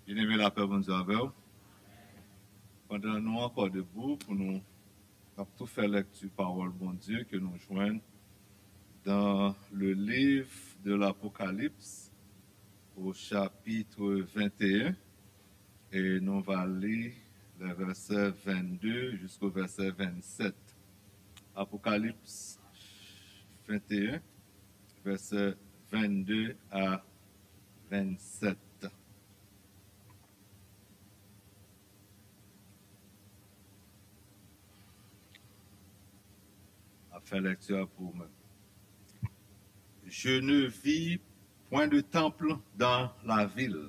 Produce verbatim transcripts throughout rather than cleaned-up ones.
Byeneme, lapè Bondye avè w. Pandan nou ankò debou pou nou ap tou fè lèkti pawòl Bondye ke nou jwenn dans le livre de l'Apocalypse au chapitre vingt et un, et nou va li le verset vingt-deux jusqu'au verset vingt-sept. Apocalypse vingt et un, verset vingt-deux à vingt-sept. Ap fè lèkti a pou ou menm. Je ne vis point de temple dans la ville,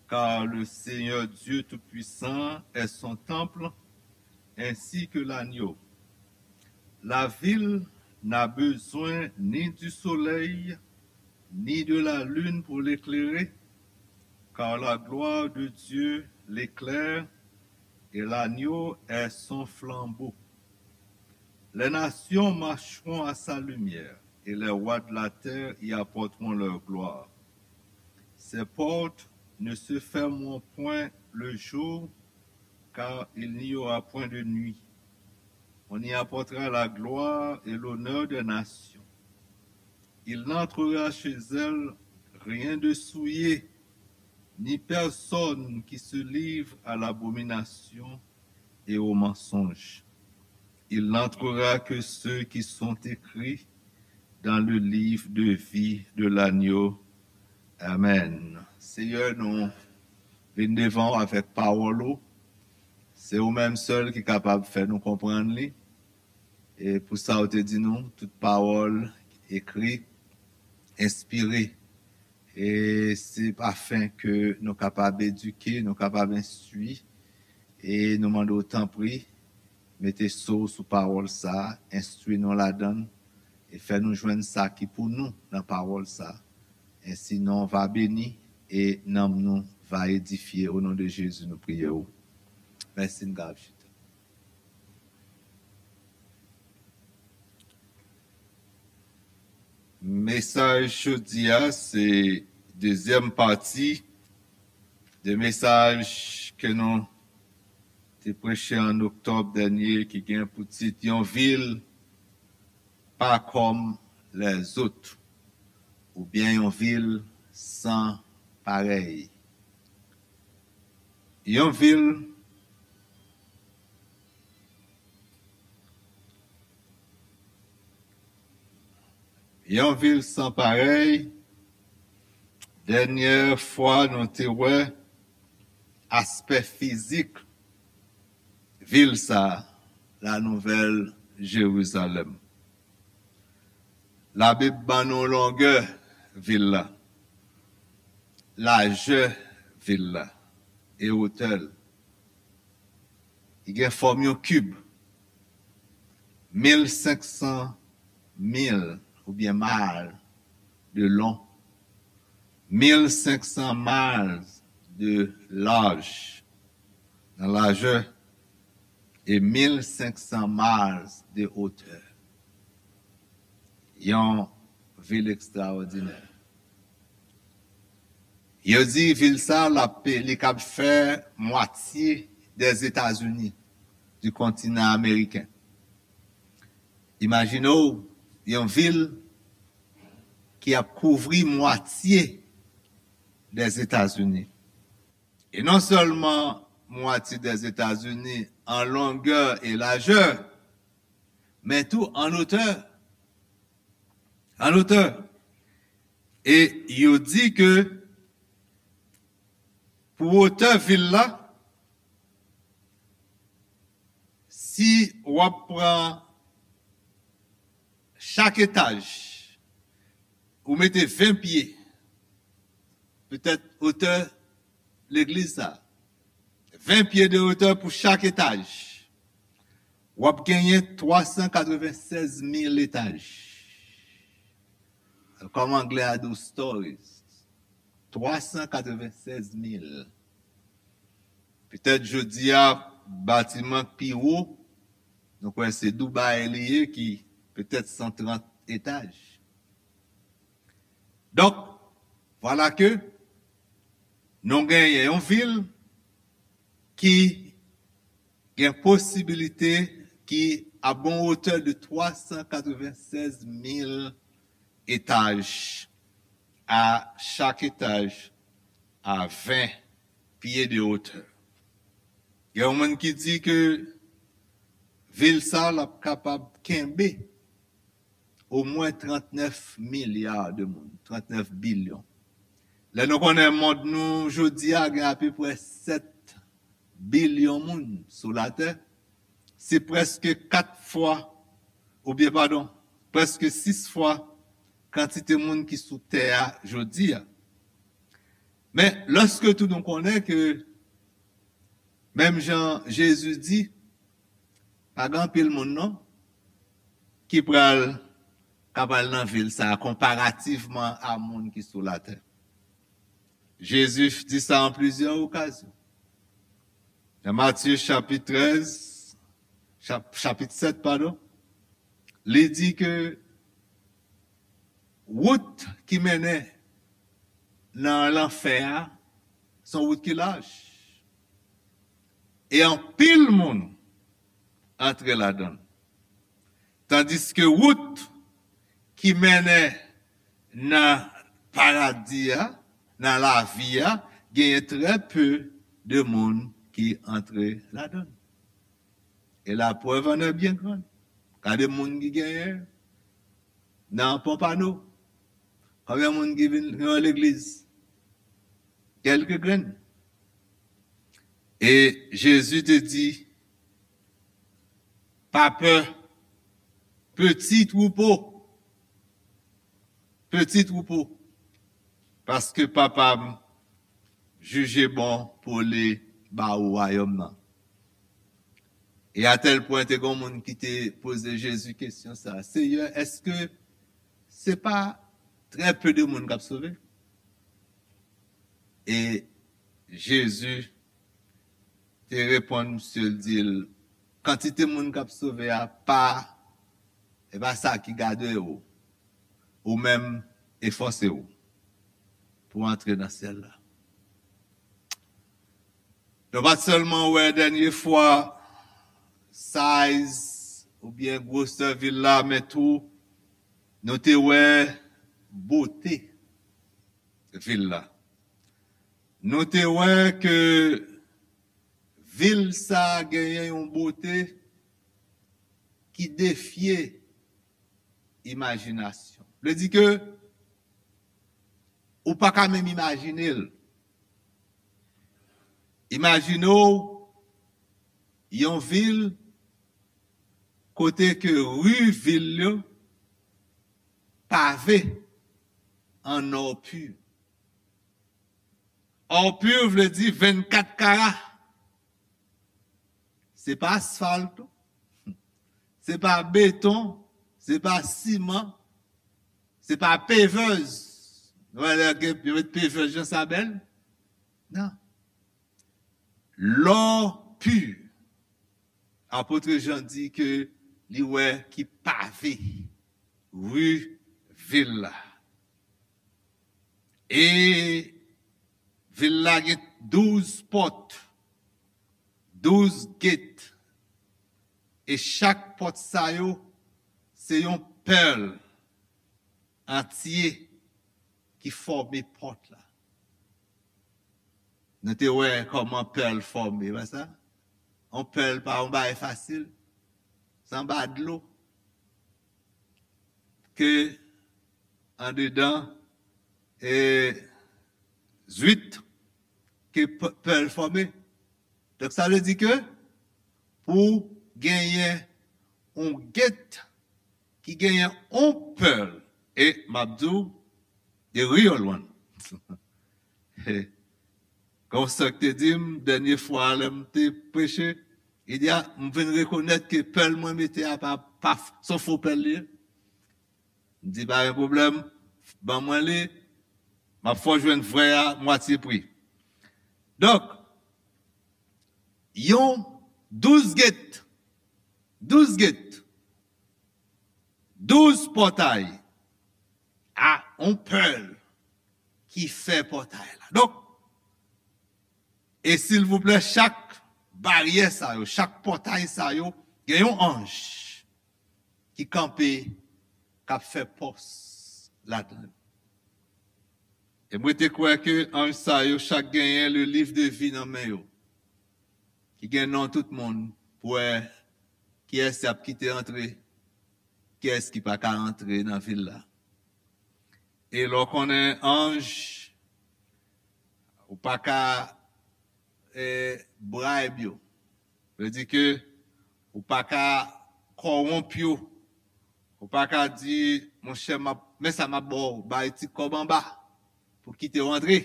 car le Seigneur Dieu Tout-Puissant est son temple, ainsi que l'agneau. La ville n'a besoin ni du soleil, ni de la lune pour l'éclairer, car la gloire de Dieu l'éclaire, et l'agneau est son flambeau. Les nations marcheront à sa lumière, et les rois de la terre y apporteront leur gloire. Ses portes ne se fermeront point le jour, car il n'y aura point de nuit. On y apportera la gloire et l'honneur des nations. Il n'entrera chez elles rien de souillé, ni personne qui se livre à l'abomination et au mensonge. Il n'entrera que ceux qui sont écrits dans le livre de vie de l'agneau. Amen. Senyè, nou vin devan w avèk pawòl ou. Se ou menm sèl ki kapab fè nou konprann li. E pou sa ou te di nou, tout pawòl ekri, enspire. E se afen ke nou kapab edike, nou kapab enstwi. E nou mande w, tanpri, mete so w sou pawòl sa, enstwi nou ladan l, e fè nou jwenn sa ki pou nou nan pawòl sa. Ensi non w va beni e nanm nou va edifye. O non de Jezi, nou priye w. Mèsi, n ka ap chita. Mesaj jodi a, se dezyèm pati de mesaj ke nou te preche an oktòb dènye, ki gen pou tit Yon vil pa kòm lèzòt, oubyen yon vil san parèy. Yon vil, yon vil san parèy. Dènyè fwa nou te wè aspè fizik vil sa, la Nouvèl Jerizalèm. Labib ban nou longè vil la, lajè vil la e wotè l. Li gen fòm yon kib, mil senk san mil oubyen mil de long, mil senk san miles de large nan lajè e mil senk san miles de hauteur. Yon vil ekstraòdinè. Yo di vil sa, l ap, li kab fè mwatye dèzetazini, di kontinan ameriken. Imajine w yon vil ki ap kouvri mwatye dèzetazini. E non sèlman mwatye dèzetazini an longè e lajè, men tou an otè. An otè. E yo di ke pou wotè vil la, si w ap pran chak etaj, ou mete ven pye, petèt otè legliz sa, ven pye de otè pou chak etaj, w ap genyen twa san katreven sèz mil etaj. Kòm anglè a di w, stories. Twa san katreven sèz mil. Petèt jodi a, batiman k pi wo, nou kwè se Dubai li ye, ki petèt san trant etaj. Donk, vwala ke Nou genyen yon vil ki gen posibilite ki a bon wotè de twa san katreven sèz mil etaj, a chak etaj a ven pye de wotè. Gen yon moun ki di ke vil sa l ap kapab kenbe omwen trannèf milya de moun, trannèf bilyon. Lè nou konnen mond nou jodi a gen apeprè sèt bilyon moun sou latè, se prèske kat fwa, oubyen padon, prèske sis fwa kantite moun ki sou tè a jodi a. Men, lòske tou nou konnen ke, menm jan Jezi di, pa gen anpil moun non ki pral, ka pral nan vil sa a konparativman a moun ki sou latè. Jezi di sa an plizyè okazyon. Nan Matye chapit trèz, chap, chapit sèt, padon, li di ke wout ki mennen nan lanfè a, se yon wout ki laj. E anpil moun antre ladan l. Tandiske wout ki mennen nan paradi a, nan lavi a, genyen trè pe de moun ki antre ladan l. Et la preuve en est bien grande. Gade moun ki genyen nan Pompano. Konbyen moun ki vin nan legliz? Kèlke grenn. E Jezi te di, pa pè, peti twoupo, peti twoupo, paske Papa m jije bon pou li ba ou wayòm nan. E atèl pwen te gen moun ki te poze Jezi kesyon sa, Seyè, èske se pa trè pe de moun k ap sove? E Jezi te reponn misye, l di l, kantite moun k ap sove a pa, e pa sa ki gade w. Ou menm, efòse w pou antre nan syèl la. Nou pa t sèlman wè dènye fwa size oubyen gwosè vil la, men tou nou te wè bote vil la. Nou te wè ke vil sa a genyen yon bote ki defye imajinasyon. Vle di ke ou pa ka menm imajine l. Imajine w yon vil kote ke ri vil yo pave an or pur. Or pur vle di vennkat kara. Se pa asfalt, se pa beton, se pa siman, se pa pevèz. Nou wè lè gen, yo met pevèz jan sa bèl. Non. Lò pi. Apot Jan di ke li wè ki pave ri vil la. E vil la gen douz pòt, douz get. E chak pòt sa yo, se yon pèl antye ki fòme pòt la. Nou te wè kòman pèl fòme, pa sa? Yon pèl pa yon bagay fasil. Se anba dlo ke andedan e zwit ke p-, pèl fòme. Donk, sa vle di ke pou genyen yon get ki genyen yon pèl, e m ap di w, e real one. Kon sa k te di m, dènye fwa lè m te preche, li di, a, m vin rekonèt ke pèl mwen mete a pa, pa, s on fo pèl li ye. M di, pa gen pwoblèm, ban mwen li, m ap fè w jwenn vrè a mwatye pri. Donk, yon douz get, douz get, douz pòtay a yon pèl ki fè pòtay la. Donk, E silvouplè, chak baryè sa yo, chak pòtay sa yo, gen yon anj ki kanpe, k ap fè pòs ladan l. E mwen te kwè ke anj sa yo chak genyen le livre de vie nan men yo, ki gen non tout moun, pou wè kiyès y ap kite antre, kiyès ki pa ka antre nan vil la. E lè w konnen anj, ou pa ka eh, bribe yo. Vle di ke ou pa ka kòwonp yo. Ou pa ka di, monchè, m ap, men sa m ap ba w, bay ti kòb anba pou kite w antre.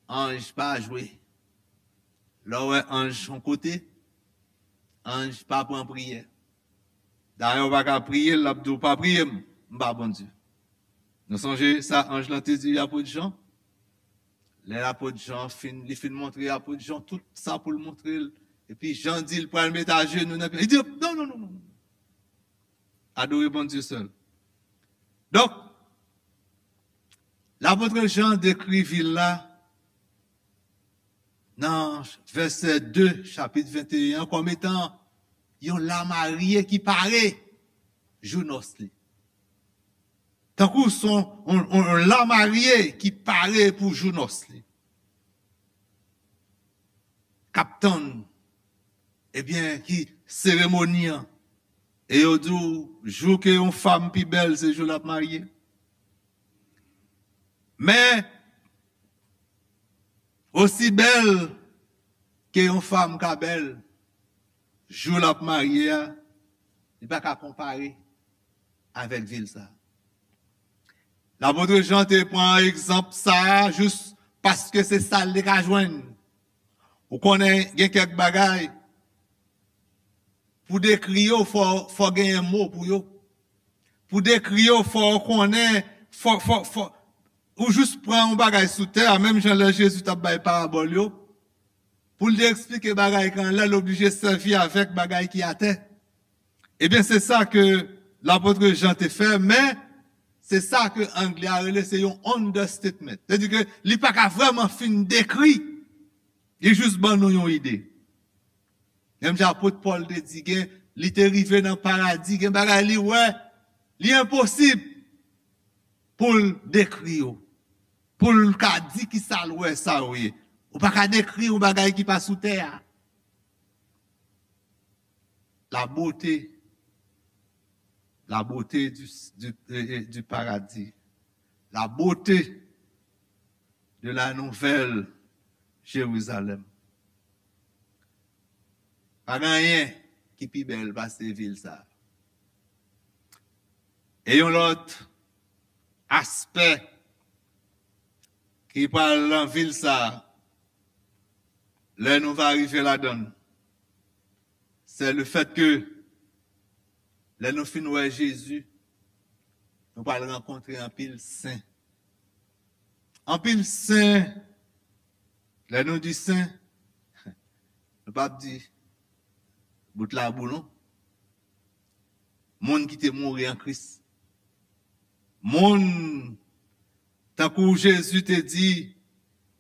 Anj pa jwe. Lè w wè anj yon kote, anj pa pran priyè. Dayè, w pa ka priye l, l ap di w pa priye m, m pa Bondye. Nou sonje sa anj lan te di apot Jan? Lè apot Jan fin, li fin montre apot Jan tout sa pou l montre l. Epi Jan di l pral met ajenou nan pye. Li di, non, non, non, non, non. Adore Bondye sèl. Donk, lapot Jan dekri vil la nan vèsè de chapit venteyen an kòm etan yon lamarye ki pare jou nòs li. Tankou se yon, yon, yon, yon lamarye ki pare pou jou nòs li. K ap tann, ebyen, ki seremoni an. E yo di w, jou ke yon fanm pi bèl, se jou l ap marye. Men, osi bèl ke yon fanm ka bèl, jou l ap marye a, li pa ka konpare avèk vil sa. Lapot Jan te pran egzanp sa a jis paske se sa l te ka jwenn. Ou konnen, gen kèk bagay, pou dekri yo, fò, fò genyen mo pou yo. Pou dekri yo, fò w konnen, fò, fò, fò, ou jis pran yon bagay sou tè a, menm jan lè Jezi t ap bay parabòl yo, pou l te eksplike bagay ki anlè, l oblije sèvi avèk bagay ki atè. Ebyen, se sa ke lapot Jan te fè, men se sa ke anglè a rele se yon understatement. Se di ke li pa ka vrèman fin dekri, li jis ban nou yon ide. Menm jan apot Pòl te di, gen, li te rive nan paradi, gen bagay li wè, li enposib pou l dekri yo, pou l ka di ki sa l wè sa yo ye. Ou pa ka dekri yon bagay ki pa sou tè a. La beauté, la beauté du, du, eh, eh, du paradis, la beauté de la nouvelle Jérusalem. Pa gen anyen ki pi bèl pase vil sa. E yon lòt aspè ki pral nan vil sa, lè nou va rive ladan l, se le fèt ke lè nou fin wè Jezi, nou pral rankontre anpil sen. Anpil sen, lè nou di sen, nou p ap di bout labou non. Moun ki te mouri an Kris. Moun, tankou Jezi te di,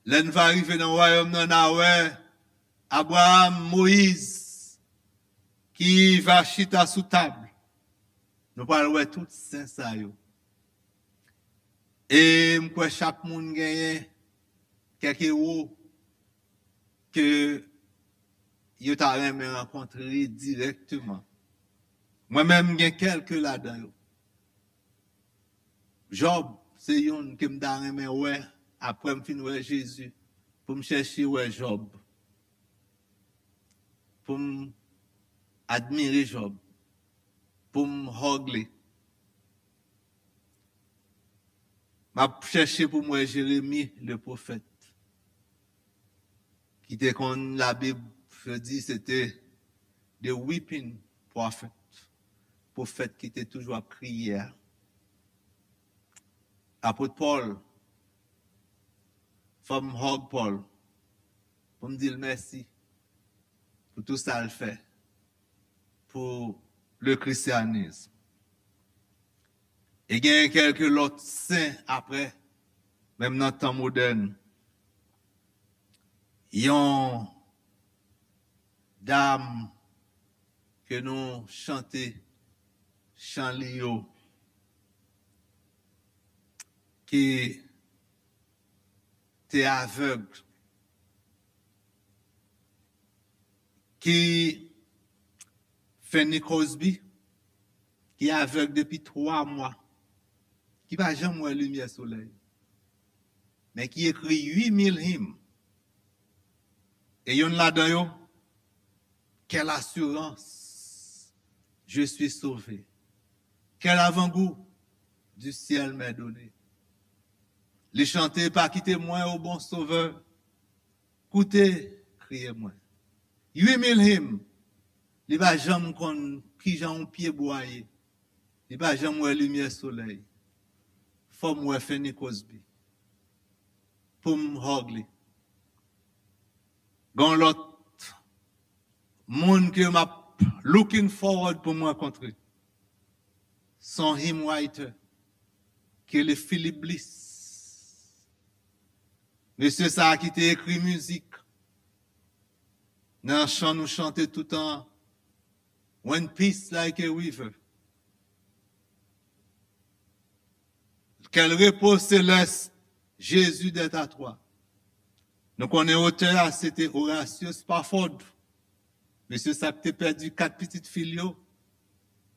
lè n va rive nan wayòm nan, n a wè Abraram, Moyiz, ki va chita sou tab. Nou pral wè tout sen sa yo. E m kwè chak moun genyen kèk ewo ke yo ta renmen rankontre dirèkteman. Mwen menm, m gen kèlke ladan yo. Jòb se youn ke m ta renmen wè apre m fin wè Jezi, pou m chèche wè Jòb, pou m admire Jòb, pou m hug li. M ap chèche pou m wè Jeremi, le pwofèt, ki te konn, Labib di se te the weeping prophet, pwofèt ki te toujou ap kriye a. Apot Pòl, fò m hug Pòl, pou m di l mèsi pou tou sa l fè pou le christianisme. E genyen kèlke lòt sen apre, menm nan tan modèn. Yon dam ke nou chante chan li yo, ki te avèg, ki Fanny Crosby, ki avèg depi twa mwa, ki pa janm wè limyè solèy, men ki ekri uit mil him. E yonn ladan yo, Quelle assurance, je suis sauvé. Quel avant-goût, du ciel m'est donné. Li chante, pa kite mwen, o bon Sovè, koute kriye mwen. Uit mil him, li pa janm konn kijan yon pyebwa ye. Li pa janm wè limyè solèy. Fò m wè Fanny Crosby pou m hug li. Gon lòt moun ke m ap looking forward pou m rankontre. Se yon hymn writer ki rele Philip Bliss. Mesye sa a ki te ekri mizik nan chan nou chante toutan, When peace like a river. Quel repos céleste, Jésus d'être à toi. Nou konnen otè a, se te Horatio Spafford. Mesye sa k te pèdi kat pitit fi l yo.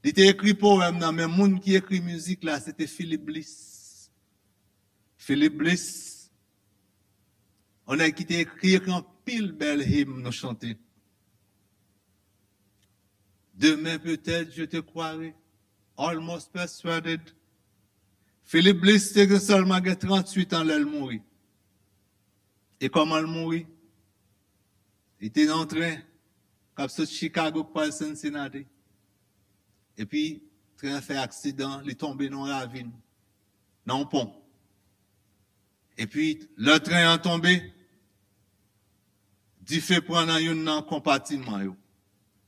Li te ekri powèm nan, men moun ki ekri mizik la, se te Philip Bliss. Philip Bliss, yon nèg ki te ekri, ekri anpil bèl him nou chante. Demain peut-être je te croirai, almost persuaded. Philip Bliss te gen sèlman gen tranntuit an lè l mouri. E kòman l mouri? Li te nan yon tren k ap sot Chicago k pral Cincinnati. Epi, tren an fè aksidan, li tonbe nan yon ravin, nan yon pon. Epi, lè tren an tonbe, dife pran nan youn nan konpatiman yo.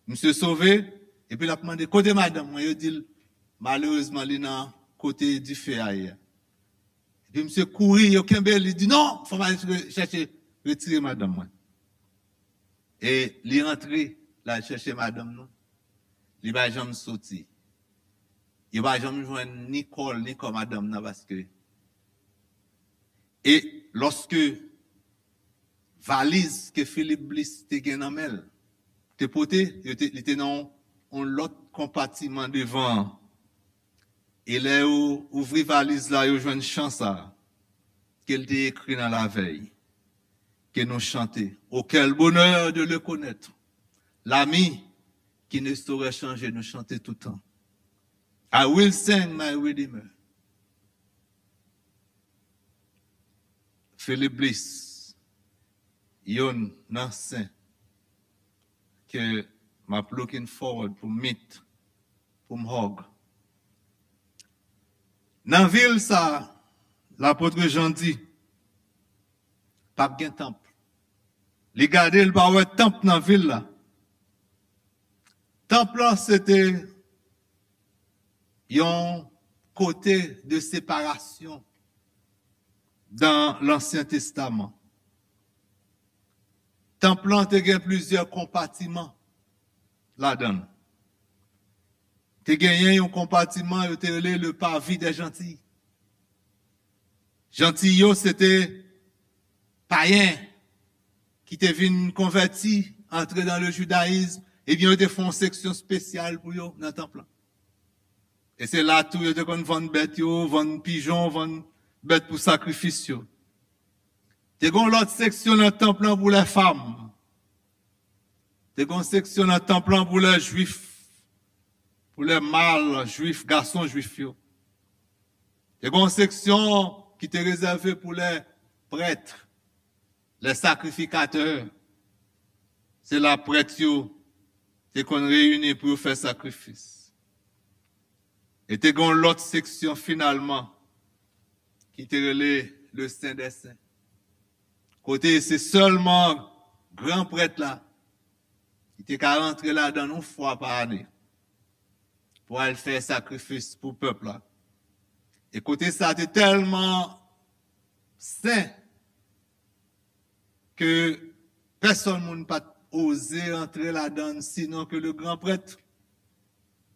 Misye sove, epi l ap mande, "Kote madanm mwen?" Yo di l, "Malerezman, li nan kote dife a ye a." Epi misye kouri, yo kenbe l, li di, "Non, fò m al re-, chèche retire madanm mwen." E li rantre, l al chèche madanm nan. Li pa janm soti. Yo pa janm jwenn ni kò l, ni kò madanm nan, paske, e lòske valiz ke Philip Bliss te gen nan men l, te pote, yo te, li te nan yon, yon lòt konpatiman devan an. E lè yo ouvri valiz la, yo jwenn chan sa a, ke l te ekri nan lavèy, ke nou chante. Oh, quel bonheur de le connaître, l'ami qui ne saurait changer, nou chante toutan. I will sing my Redeemer. Philip Bliss, yonn nan sen ke m ap looking forward pou meet, pou m hug. Nan vil sa, lapot Jan di, p ap gen tanp. Li gade, li pa wè tanp nan vil la. Tanp lan, se te yon kote de separasyon dan Lansyen Testaman. Tanp lan te gen plizyè konpatiman ladan l. Te genyen yon konpatiman yo te rele le parvis des Gentils. Jantiy yo, se te payen ki te vin konvèti, antre dans le judaïsme, ebyen, yo te fè yon seksyon espesyal pou yo nan tanp lan. E se la tou yo te konn vann bèt yo, vann pijon, vann bèt pou sakrifis yo. Te gen yon lòt seksyon nan tanp lan pou lè fanm. Te gen yon seksyon nan tanp lan pou lè jwif, pou lè mal jwif, gason jwif yo. Te gen yon seksyon ki te rezève pou lè prèt, lè sakrifikatè. Se la prèt yo te konn reyini pou yo fè sakrifis. E te gen yon lòt seksyon finalman ki te rele le Sen dè Sen. Kote se sèlman gran prèt la ki te ka rantre ladan l yon fwa pa ane pou al fè sakrifis pou pèp la. E kote sa te tèlman sen ke Pèsonn moun pa t oze antre ladan l, sinon ke le gran prèt.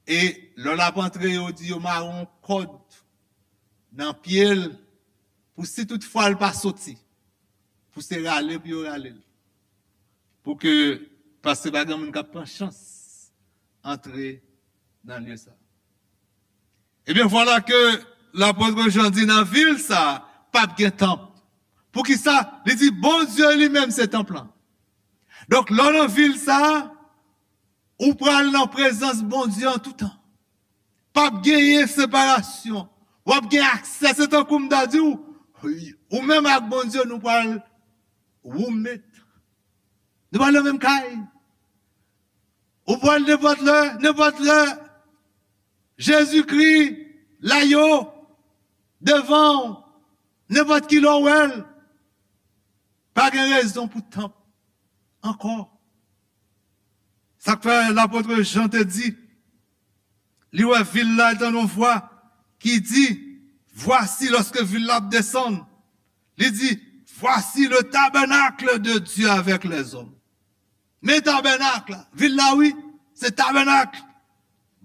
E lè l ap antre, yo di yo mare yon kòd nan pye l, pou si toutfwa l pa soti, pou se rale pou yo rale l. Pou ke, paske pa gen moun k ap pran chans antre nan lye sa. Ebyen, vwala ke lapot Jan di nan vil sa, p ap gen tanp. Poukisa? Li di, Bondye li menm se tanp lan. Donk, lè w nan vil sa, ou pral nan prezans Bondye an toutan. P ap genyen separasyon. W ap gen aksè, se tankou m ta di w, ou menm ak Bondye, nou pral woumet. Nou pral nan menm kay. Ou pral nenpòt lè, nenpòt lè, Jezikri la yo devan w, nenpòt ki lè w wè l. Pa gen rezon pou tanp ankò. Sa k fè lapot Jan te di, li wè vil la, li tande yon vwa ki di, Voici, lòske vil la ap desann, li di, Voici le tabernacle de Dieu avec les hommes. Men tabènak la, vil la wi, se tabènak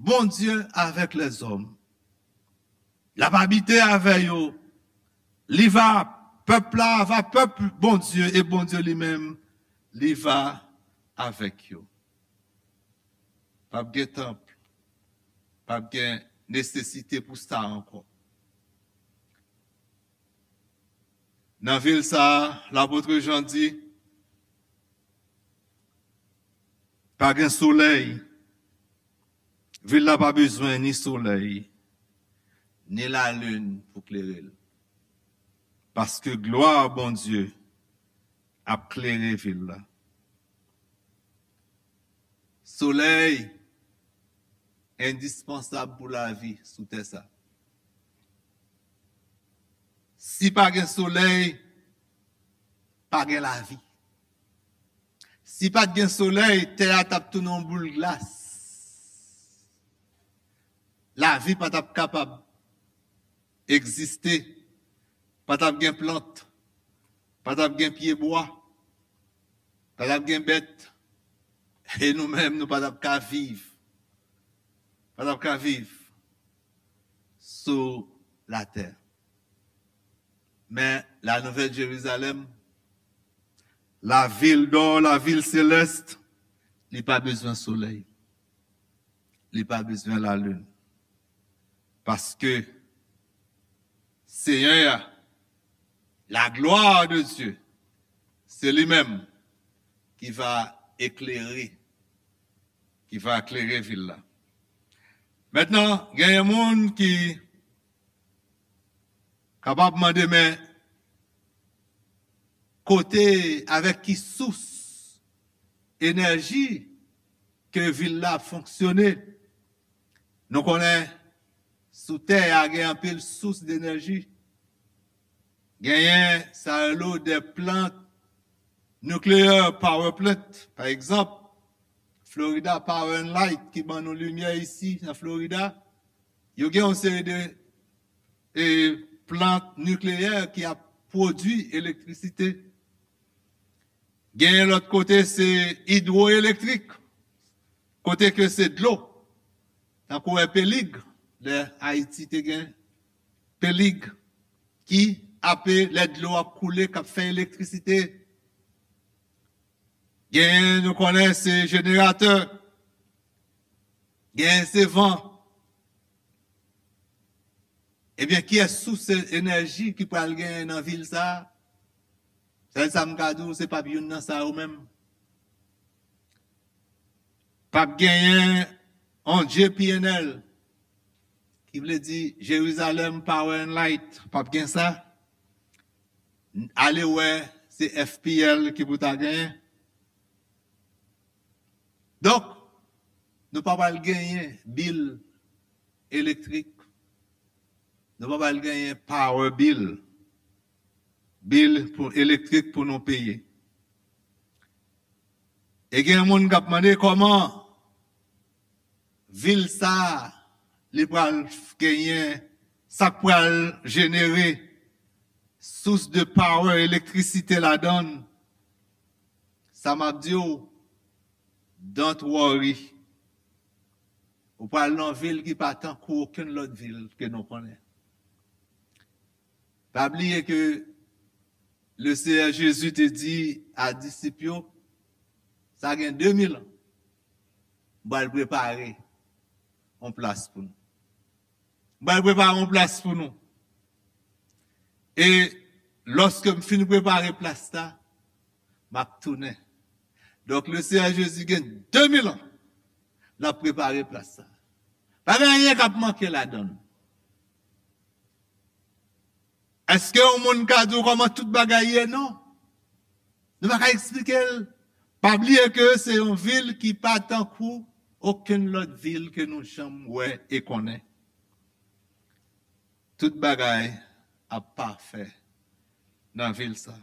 Bondye avèk lèzòm. L ap abite avè yo. Li va, pèp la va pèp Bondye, e Bondye li menm, li va avèk yo. P ap gen tanp, p ap gen nesesite pou sa ankò. Nan vil sa a, lapot Jan di, pa gen solèy. Vil la pa bezwen ni solèy, ni lalin pou klere l. Paske glwa Bondye ap klere vil la. Solèy endispansab pou lavi sou tè sa. Si pa gen solèy, pa gen lavi. Si pa t gen solèy, tè a t ap tounen yon boul glas. Lavi pa t ap kapab egziste. Pa t ap gen plant. Pa t ap gen pyebwa. Pa t ap gen bèt. E nou menm, nou pa t ap ka viv. Pa t ap ka viv sou latè. Men la nouvèl Jerizalèm, la vil dò, la vil selès, li pa bezwen solèy. Li pa bezwen lalin. Paske Seyè a, la gloire de Dieu, se li menm ki va eklere, ki va eklere vil la. Mentnan, genyen moun ki kapab mande, men kote, avèk ki sous enèji ke vil la ap fonksyone? Nou konnen sou tè a gen anpil sous denèji. Genyen sa yo rele de plant nuclear power plant. Pa egzanp, Florida Power and Light ki ban nou limyè isi nan Florida. Yo gen yon seri de e, plant nikleyè ki ap pwodui elektrisite. Genyen lòt kote, se idwoelektrik, kote ke se dlo. Tankou wè Pelig, lè Ayiti te gen Pelig, ki ape lè dlo ap koule, k ap fè elektrisite. Genyen, nou konnen, se jeneratè. Genyen, se van. Ebyen, kiyès sous enèji ki pral genyen nan vil sa a? Sèl sa m ka di w, se p ap youn nan sa yo menm. P ap genyen yon J P N L, ki vle di Jerusalem Power and Light. P ap gen sa. Ale wè, se F P L ki pou ta genyen. Donk, nou pa pral genyen bil elektrik. Nou pa pral genyen power bill. Bil pou elektrik pou nou peye. E gen moun k ap mande kòman vil sa a, li pral genyen, sa k pral jenere sous de power, elektrisite ladan l. Sa m ap di w, don't worry. Ou pral nan vil ki pa tankou okenn lòt vil ke nou konnen. Pa bliye ke le Seyè Jezi te di a disip yo, sa gen de mil an, m pral prepare yon plas pou nou. M pral prepare yon plas pou nou. E lòske m fin prepare plas la, m ap tounen. Donk, le Seyè Jezi gen de mil an, l ap prepare plas la. Pa gen anyen k ap manke ladan l. Èske yon moun ka di w kòman tout bagay ye? Non. Nou pa ka eksplike l. Pa bliye ke se yon vil ki pa tankou okenn lòt vil ke nou janm wè e konnen. Tout bagay ap pafè nan vil sa.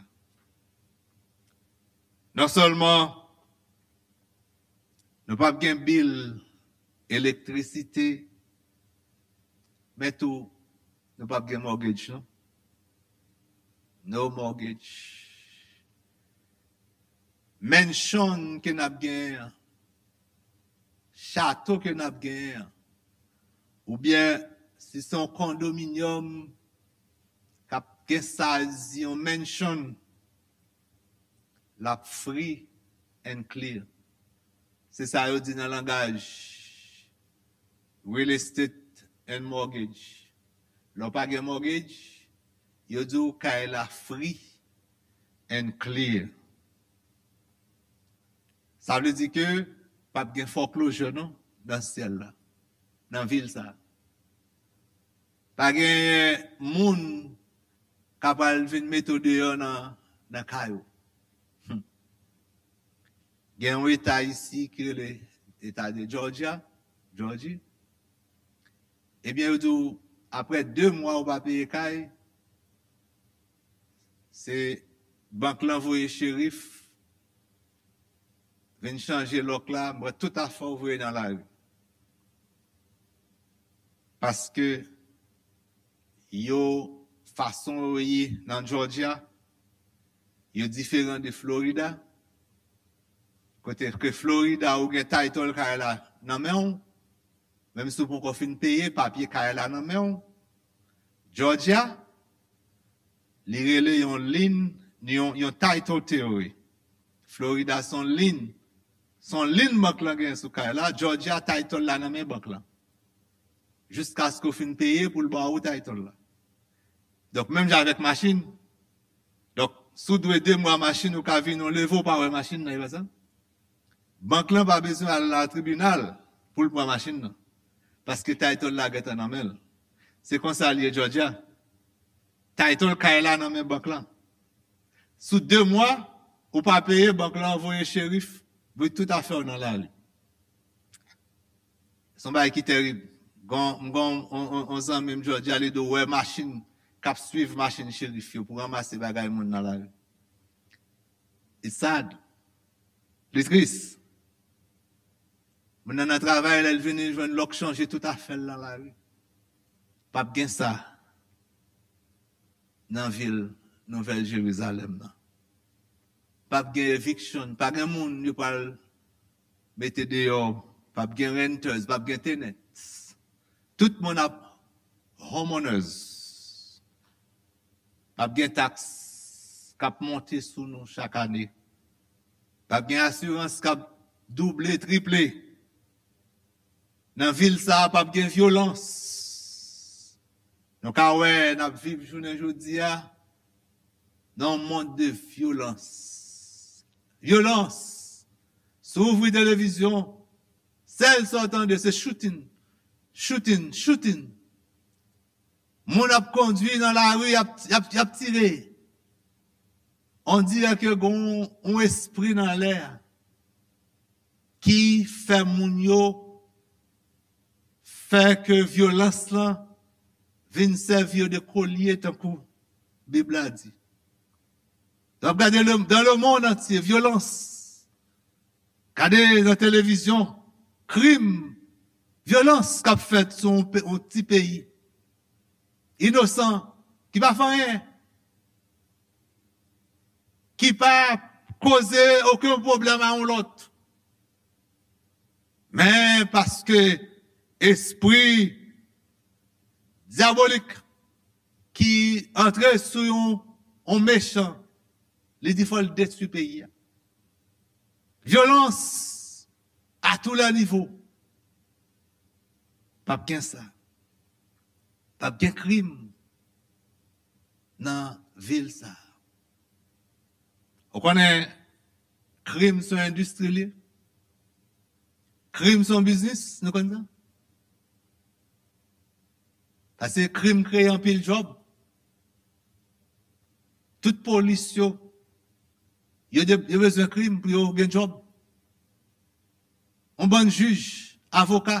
Non sèlman nou p ap gen bil elektrisite, men tou, nou p ap gen mortgage, non. No mortgage. Mansion ke n ap genyen an, chato ke n ap genyen an, oubyen si se yon kondominyòm k ap gen size yon mansion, l ap free and clear. Se sa yo di nan langaj real estate and mortgage. Lè w pa gen mortgage, yo di w kay la free and clear. Sa vle di ke p ap gen foreclosure non nan syèl la, nan vil sa. Pa gen moun k ap al vin mete w deyò nan, nan kay ou. Hmm. Gen yon eta isi ki rele eta de Georgia, Georgie. Ebyen, yo di w, apre de mwa ou pa peye kay, se bank lan voye cherif, vin chanje lòk la, mwen tout afè w voye nan lari. Paske yo, fason yo ye nan Georgia, yo diferan de Florida. Kote ke Florida, ou gen title kay la nan men w, menm si w poko fin peye, papye kay la nan men w. Georgia, li rele yon lien, yon, yon title theory. Florida se yon lien, se yon lien bank lan gen sou kay la, Georgia title la nan men bank lan. Jiskaske w fin peye pou l ba ou title la. Donk, menm jan avèk machin. Donk, si w dwe de mwa machin, ou ka vin, ou leve, ou pa wè machin nan, e pa sa? Bank lan pa bezwen al nan tribinal pou l pran machin nan. Paske title la gentan nan men l. Se konsa l ye Georgia. Title kay la nan men bank lan. Sou de mwa, ou pa peye, bank lan voye cherif, voye tout afè w nan lari. Se yon bagay ki terib. Gon, m gon on, on, on zanmi m Georgia, li di w wè machin k ap swiv machin cherif yo pou ranmase bagay moun nan lari. It's sad. Li tris. Moun nan nan travay, lè l vini, l jwenn lòk chanje tout afè l nan lari. P ap gen sa nan vil Nouvèl Jerizalèm nan. P ap gen eviction, pa gen moun yo pral mete deyò, p ap gen renters, p ap gen tenants. Tout moun ap homeowners. P ap gen taks k ap monte sou nou chak ane. P ap gen asirans k ap double, triple. Nan vil sa a, p ap gen vyolans. Nou ka wè, n ap viv jounen jodi a nan yon mond de vyolans. Vyolans! Si w ouvri televizyon, sèl sa w tande, se shooting, shooting, shooting. Moun ap kondwi nan lari, y ap, y ap, y ap tire. On dirè ke gon yon espri nan lè a ki fè moun yo fè ke vyolans lan vin sèvi yo de kolye tankou Bib la di. W ap gade le, dans le monde entier, vyolans. Gade nan televizyon, krim, vyolans k ap fèt sou yon pe-, yon ti peyi inosan, ki pa fè anyen, ki pa poze okenn pwoblèm a yon lòt. Men paske espri dyabolik ki antre sou yon, yon mechan, li di fò l detwi peyi a. Vyolans a tou lè nivo. P ap gen sa. P ap gen krim nan vil sa a. Ou konnen, krim se yon endistri li ye. Krim se yon biznis, nou konn sa. Paske krim kreye anpil djòb. Tout polis yo, yo, de- yo bezwen krim pou yo gen djòb. Yon bann jij, avoka,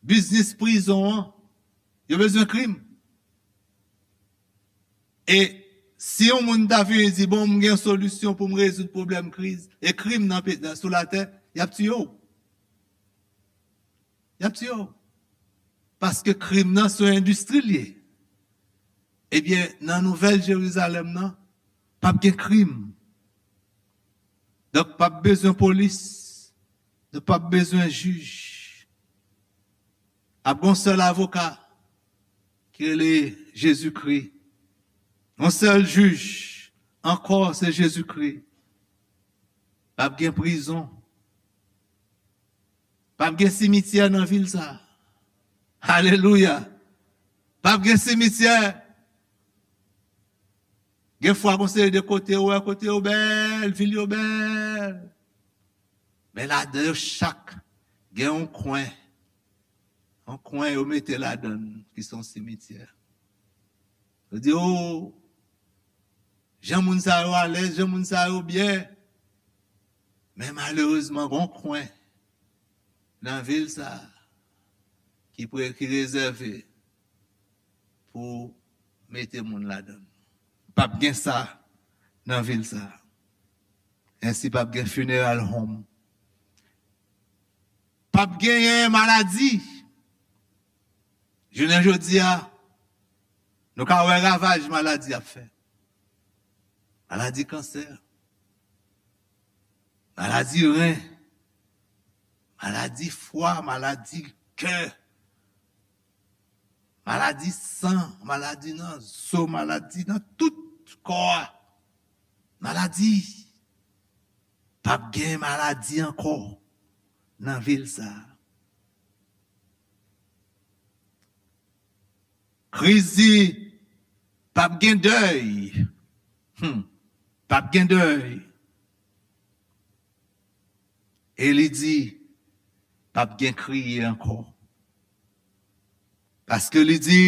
biznis prizon an, yo bezwen krim. E si yon moun ta vini di, bon, m gen solisyon pou m rezoud pwoblèm kriz e krim nan pe- nan- sou latè, y ap tiye w. Y ap tiye w. Paske krim nan se yon endistri l ye. Ebyen, nan Nouvèl Jerizalèm nan, p ap gen krim. Donk, p ap bezwen polis. Donk, p ap bezwen jij. Ap gen yon sèl avoka ki rele Jezikri. Yon sèl jij ankò, se Jezikri. P ap gen prizon. P ap gen simityè nan vil sa a. Alelouya. P ap gen simityè. Gen fwa gon seri de kote ou wè, kote yo bèl, vil yo bèl. Men ladan yo chak gen yon kwen. Yon kwen yo mete ladan l ki se yon simityè. Yo di, o, jan moun sa yo alèz, jan moun sa yo byen. Men malerezman, gon kwen nan vil sa a ki pre- ki rezève pou mete moun ladan l. P ap gen sa nan vil sa a. Ensi, p ap gen funeral home. P ap genyen maladi. Jounen jodi a, nou ka wè ravaj maladi ap fè. Maladi kansè, maladi ren, maladi fwa, maladi kè, maladi san, maladi nan zo, maladi nan tout kò a. Maladi. P ap gen maladi ankò nan vil sa a. Kriz di, p ap gen dèy. Hmm. P ap gen dèy. E li di, p ap gen kriye ankò. Paske li di,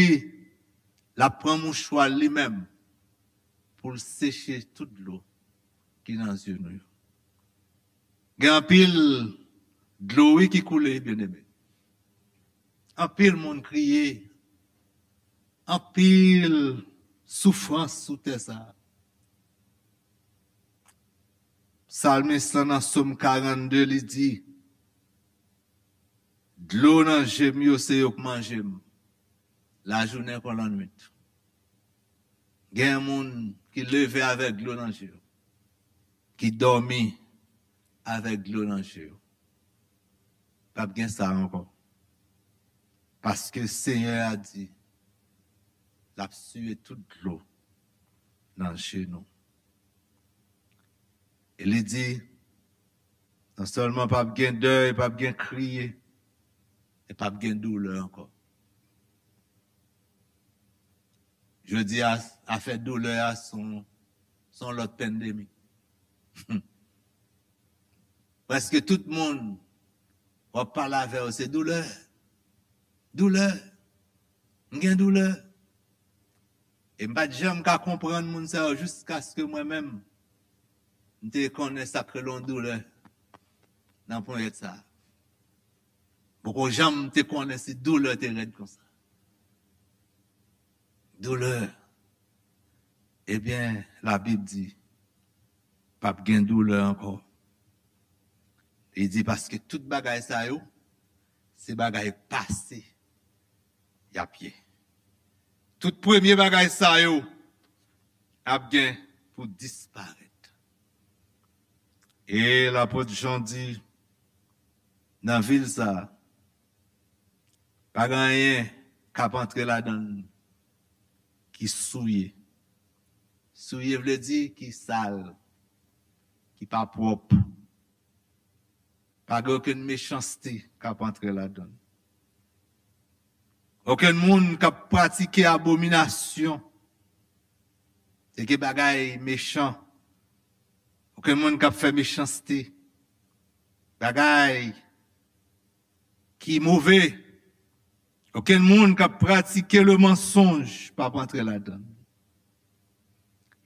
l ap pran mouchwa l li menm pou l seche tout dlo ki nan zye nou yo. Gen anpil dlo, wi, ki koule, byeneme. Anpil moun kriye. Anpil soufrans sou tè sa a. Salmis lan nan Sòm karannde, li di, dlo nan je m yo, se yo k manje m, lajounen kon lannwit. Gen moun ki leve avèk dlo nan je yo, ki dòmi avèk dlo nan je yo. P ap gen sa ankò. Paske Senyè a di, l ap siye tout dlo nan je nou. E li di, non sèlman p ap gen dèy, p ap gen kriye, e p ap gen doulè ankò. Jodi a, afè doulè a se yon, se yon lòt pandemi. Prèske tout moun w ap pale avè yo, se doulè. Doulè. M gen doulè. E m pa t janm ka konprann moun sa yo jiskaske mwen menm, m te konnen sa k rele yon doulè nan ponyèt sa a. Poko janm te konnen si doulè te rèd konsa. Doulè. Ebyen, Labib di, p ap gen doulè ankò. Li di, paske tout bagay sa yo, se bagay pase y ap ye. Tout premye bagay sa yo ap gen pou disparèt. E lapot Jan di, nan vil sa a, pa gen anyen k ap antre ladan l ki souye. Souye vle di ki sal, ki pa pwòp. Pa gen okenn mechanste k ap antre ladan l. Okenn moun k ap pratike abominasyon, se gen bagay mechan. Okenn moun k ap fè mechanste, bagay ki move, okenn moun k ap pratike le mansonj p ap antre ladan l.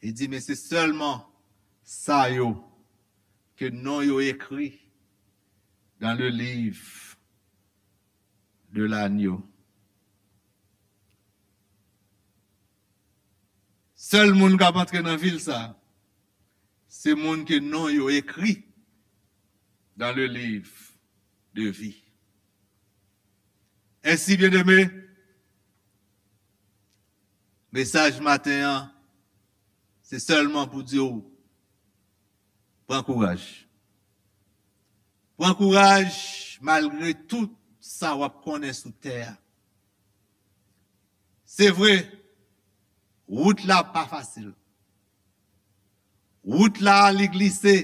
Li di, men se sèlman sa yo ke non yo ekri dans le livre de l'agneau. Sèl moun k ap antre nan vil sa, se moun ke non yo ekri dans le livre de vie. Ensi, byeneme, mesaj maten an, se sèlman pou di w, pran kouraj. Pran kouraj malgre tout sa w ap konnen sou tè a. Se vre, wout la pa fasil. Wout la, li glise.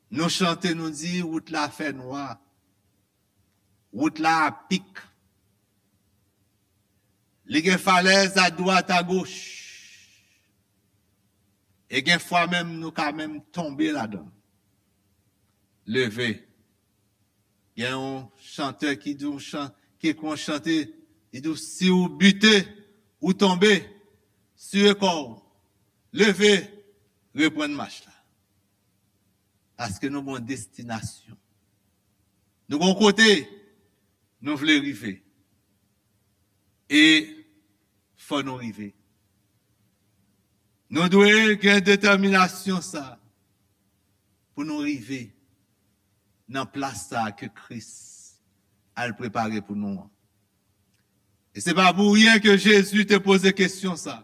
Nou chante, nou di, wout la fè nwa. Wout la apik. Li gen falèz adwat, agoch. E gen fwa menm, nou ka menm tonbe ladan l. Leve. Gen yon chantè ki di w chan-, ki ekri yon chante, li di w, si w bite, ou tonbe, sire kò w, leve, reprann mach la. Paske nou gen yon destinasyon. Nou gen yon kote nou vle rive. E fò nou rive. Nou dwe gen detèminasyon sa pou nou rive nan plas sa ke Kris al prepare pou nou an. E se pa pou ryen ke Jezi te poze kesyon sa.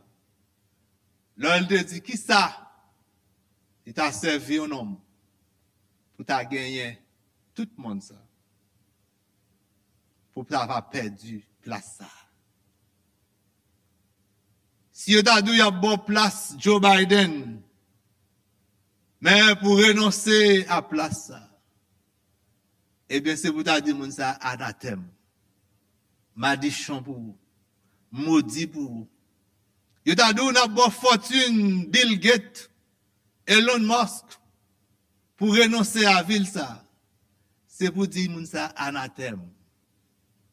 Lè l te di, kisa li ta sèvi yon nonm pou ta genyen tout mond sa, pou ta va pèdi plas sa? Si yo ta di w y ap ba w plas Joe Biden, men pou renonse a plas sa, ebyen, se pou ta di moun sa anatèm, madichon pou ou, modi pou ou. Yo ta di w n ap ba w fòtin Bill Gates, Elon Musk, pou renonse a vil sa. Se pou di moun sa anatèm.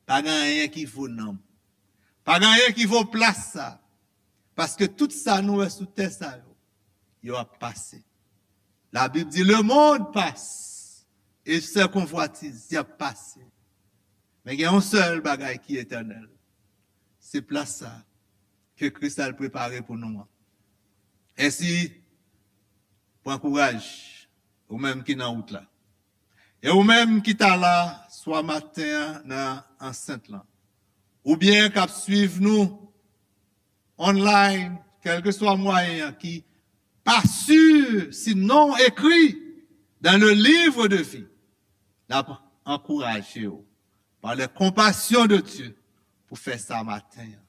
Pa gen anyen ki vo nanm. Pa gen anyen ki vo plas sa. Paske tout sa nou wè sou tè sa yo, yo ap pase. Labib di, le monde passe, et ses convoitises, y ap pase. Men gen yon sèl bagay ki etènèl. Se plas sa ke Kris al prepare pou nou an. Ensi, pran kouraj, ou menm ki nan wout la. E ou menm ki ta la, swa maten an nan ansent lan, oubyen k ap swiv nou online, kèlkeswa mwayen an, ki pa si si non w ekri dans le livre de vie, n ap ankouraje w par les compassions de Dieu pou fè sa maten an.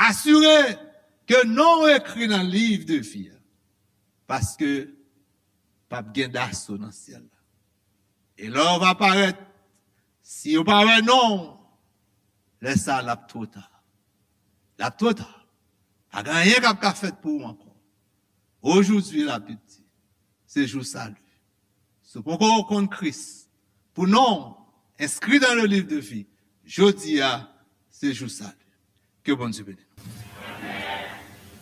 Asire ke non w ekri nan liv de vi a, paske p ap gen daso nan syèl la. E lè w va parèt, si yo pa wè non w, lè sa a, l ap twò ta. L ap twò ta. Pa gen anyen k ap ka fèt pou ou ankò. Aujourd'hui, Labib di, se jou sali. Si w poko konn Kris, pou non w enskri dans le livre de vie, jodi a, se jou sali. Ke Bondye beni nou.